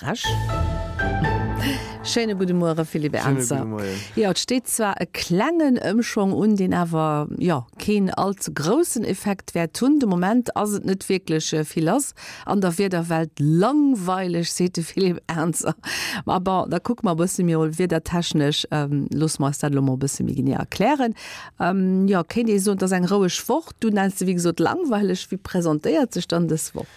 frech. Schéine gudde Muere Philippe Ernzer. Jo, et steet zwar e klengen Ëmschwong un, deen awer, jo, keen all ze groussen Effekt wäert hunn. De Moment ass et net wierklech vill lass an der Wiederwelt. Langweileg, seet de Philippe Ernzer. Ma bon, da kucke mer e bësse méi wiedertechnesch. Loosse mer eis dat elo mol e bësse méi genee erklären. Jo, kéint ee soen, et ass eng roueg Woch. Du nenns se wéi gesot langweileg. Wéi presentéiert sech dann dës Woch?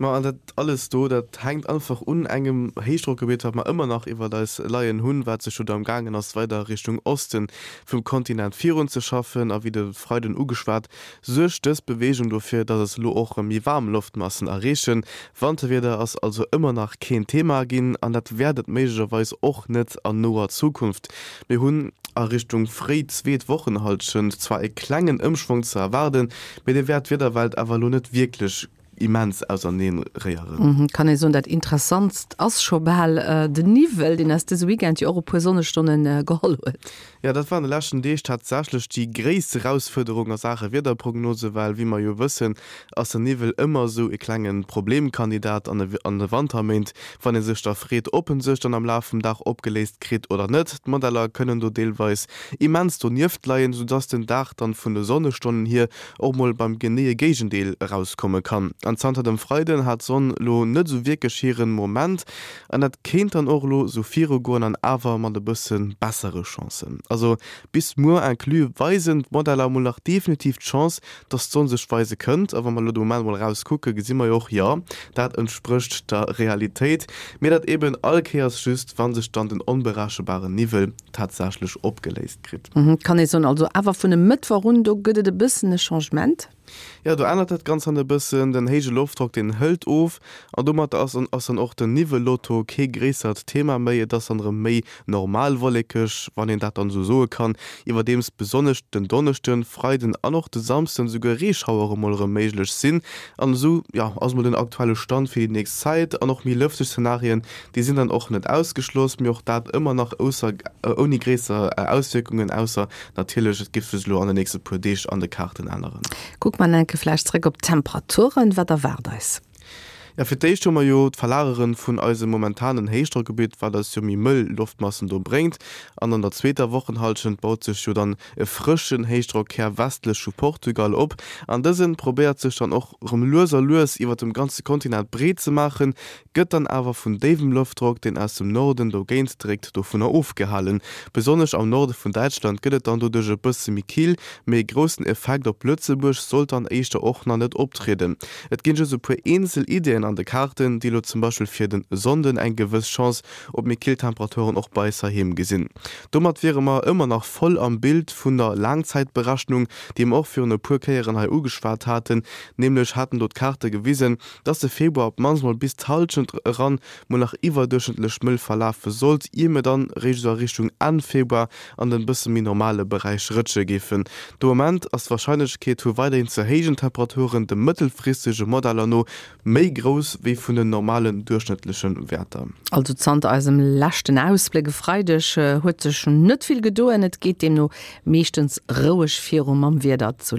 Ma an dat alles do, dat hänkt einfach un engem Héichdrockgebitt, wat mer ëmmer nach iwwert eis leien hunn, wat sech jo do am gaangen ass, weider Richtung Oste vum Kontinent virunzeschaffen. A wéi de Freiden ugeschwat, suergt dës Beweegung dofir, dass eis elo och erëm méi waarm Loftmassen erreechen. Wanterwieder ass also ëmmer nach keen Thema ginn an dat wäert et méiglecherweis och net an noer Zukunft. Mir hunn a Richtung fréi zweet Wochenhallschent zwar e klengen Ëmschwong ze erwaarden, mee dee wäert d'Wiederwelt awer elo net wierklech immens auserneen réieren. Kann ee soen, dat Interessantst ass scho bal den Niwwel, deen eis dëse Weekend jo och e puer Sonnestonne geholl huet. Jo, dat war an de leschten Deeg tatsächlech déi gréisst Erausfuerderung a Saache Wiederprognose, well wéi mer jo wëssen, ass den Niwwel ëmmer esou e klenge Problemkandidat an de Wanterméint, wann ee sech da freet, ob en sech dann am Laf vum Dag opgeléist kritt oder net. D'Modeller kënnen do deelweis immens donieft leien, soudass den Dag dann vun de Sonnestonnen hier och mol beim geneeë Géigendeel erauskomme kann. An zanter dem Freiden hat d'Sonn lo net esou wierklech hiren Moment an dat kéint dann och lo sou virugoen an awer mat e bësse bessere Chancen. Also bis muer inclus weisen d'Modeller mol nach definitiv d'Chance, dass d'Sonn sech weise kënnt. A wa mer lo de Moment mol eraus kucke gesi mer jo och, jo dat entsprécht der Realitéit, mee dat eben all Kéiers just wann sech dann den onberechenbaren Niwwel tatsächlech opgeléist kritt. Kann ee soen, also awer vun e Mëttwoch un, do gëtt et e bëssen e Changement? Jo, do ännert dat Ganzt dann e bëssen. Den héije Loftdrock, deen hëlt of an domat ass ass dann och den Niwwellotto kee gréissert Thema méi. Et ass dann erëm méi normal wollekeg, wann een dat dann esou soe kann, iwwerdeems besonnesch den Donneschden, Freiden an och de Samsden esouguer Reeschauere mol erëm méiglech sinn. An esou, jo, ass mol den aktuelle Stand fir déi nächst Zäit an och méi lëfteg Zenarien Déi sinn dann och net ausgeschloss, mee och dat ëmmer nach ausser, ouni gréisser Auswierkungen, ausser natierlech, et géif sech elo an de nächste puer Deeg an de Kaarten änneren. Kucke mer enke vläicht zréck op d'Temperaturen. Wat erwaart eis? Jo, fir d'éischt hu mer jo d'Verlagere vun eisem momentanen Héichdrockgebitt, wat eis jo méi mëll Loftmassen do bréngt. An an der zweeter Wochenhallschent baut sech jo dann e frëschen Héichdrockhär westlech vu Portugal op, an dëse probéiert sech dann och rem lues a lues iwwert dem ganze Kontinent breet ze maachen, gëtt dann awer vun déiwem Loftdrock, deen aus dem Norden dogéint dréckt, dovunner ofgehalen. Besonnesch am Norde vun Däitschland gëtt et dann doduerch e bësse méi kill, mee e groussen Effekt op Lëtzebuerg sollt dann éischter och nach net optrieden. Et ginn just e puer eenzel Ideeën an de Kaarten, déi elo zum Beispill fir den Sonnden eng gewëss Chance op méi kill Temperaturen och bei eis heiheem gesinn. Domat wiere mer ëmmer nach voll am Bild vun der Laangzäitberechnung, déi mer och virun e puer Kéieren hei ugeschwat haten, nämlech haten do d'Kaarte gewisen, dass de Februar op d'mannst mol bis d'Hallschent eran mol nach iwwerduerchschnëttlech mëll verlafe sollt, ier mir dann eréischt esou a Richtung Enn Februar an den bësse méi normale Beräich rëtsche géifen. De Moment ass d'Warscheinlechkeet vu weiderhin ze héijen Temperaturen de mëttelfristege Modeller no méi grouss wéi vun den normalen duerchschnëttleche Wäerter. Also zanter eisem leschten Ausbléck e Freideg huet sech net vill gedoen. Et geet deemno meeschtens roueg viru mam Wieder zu.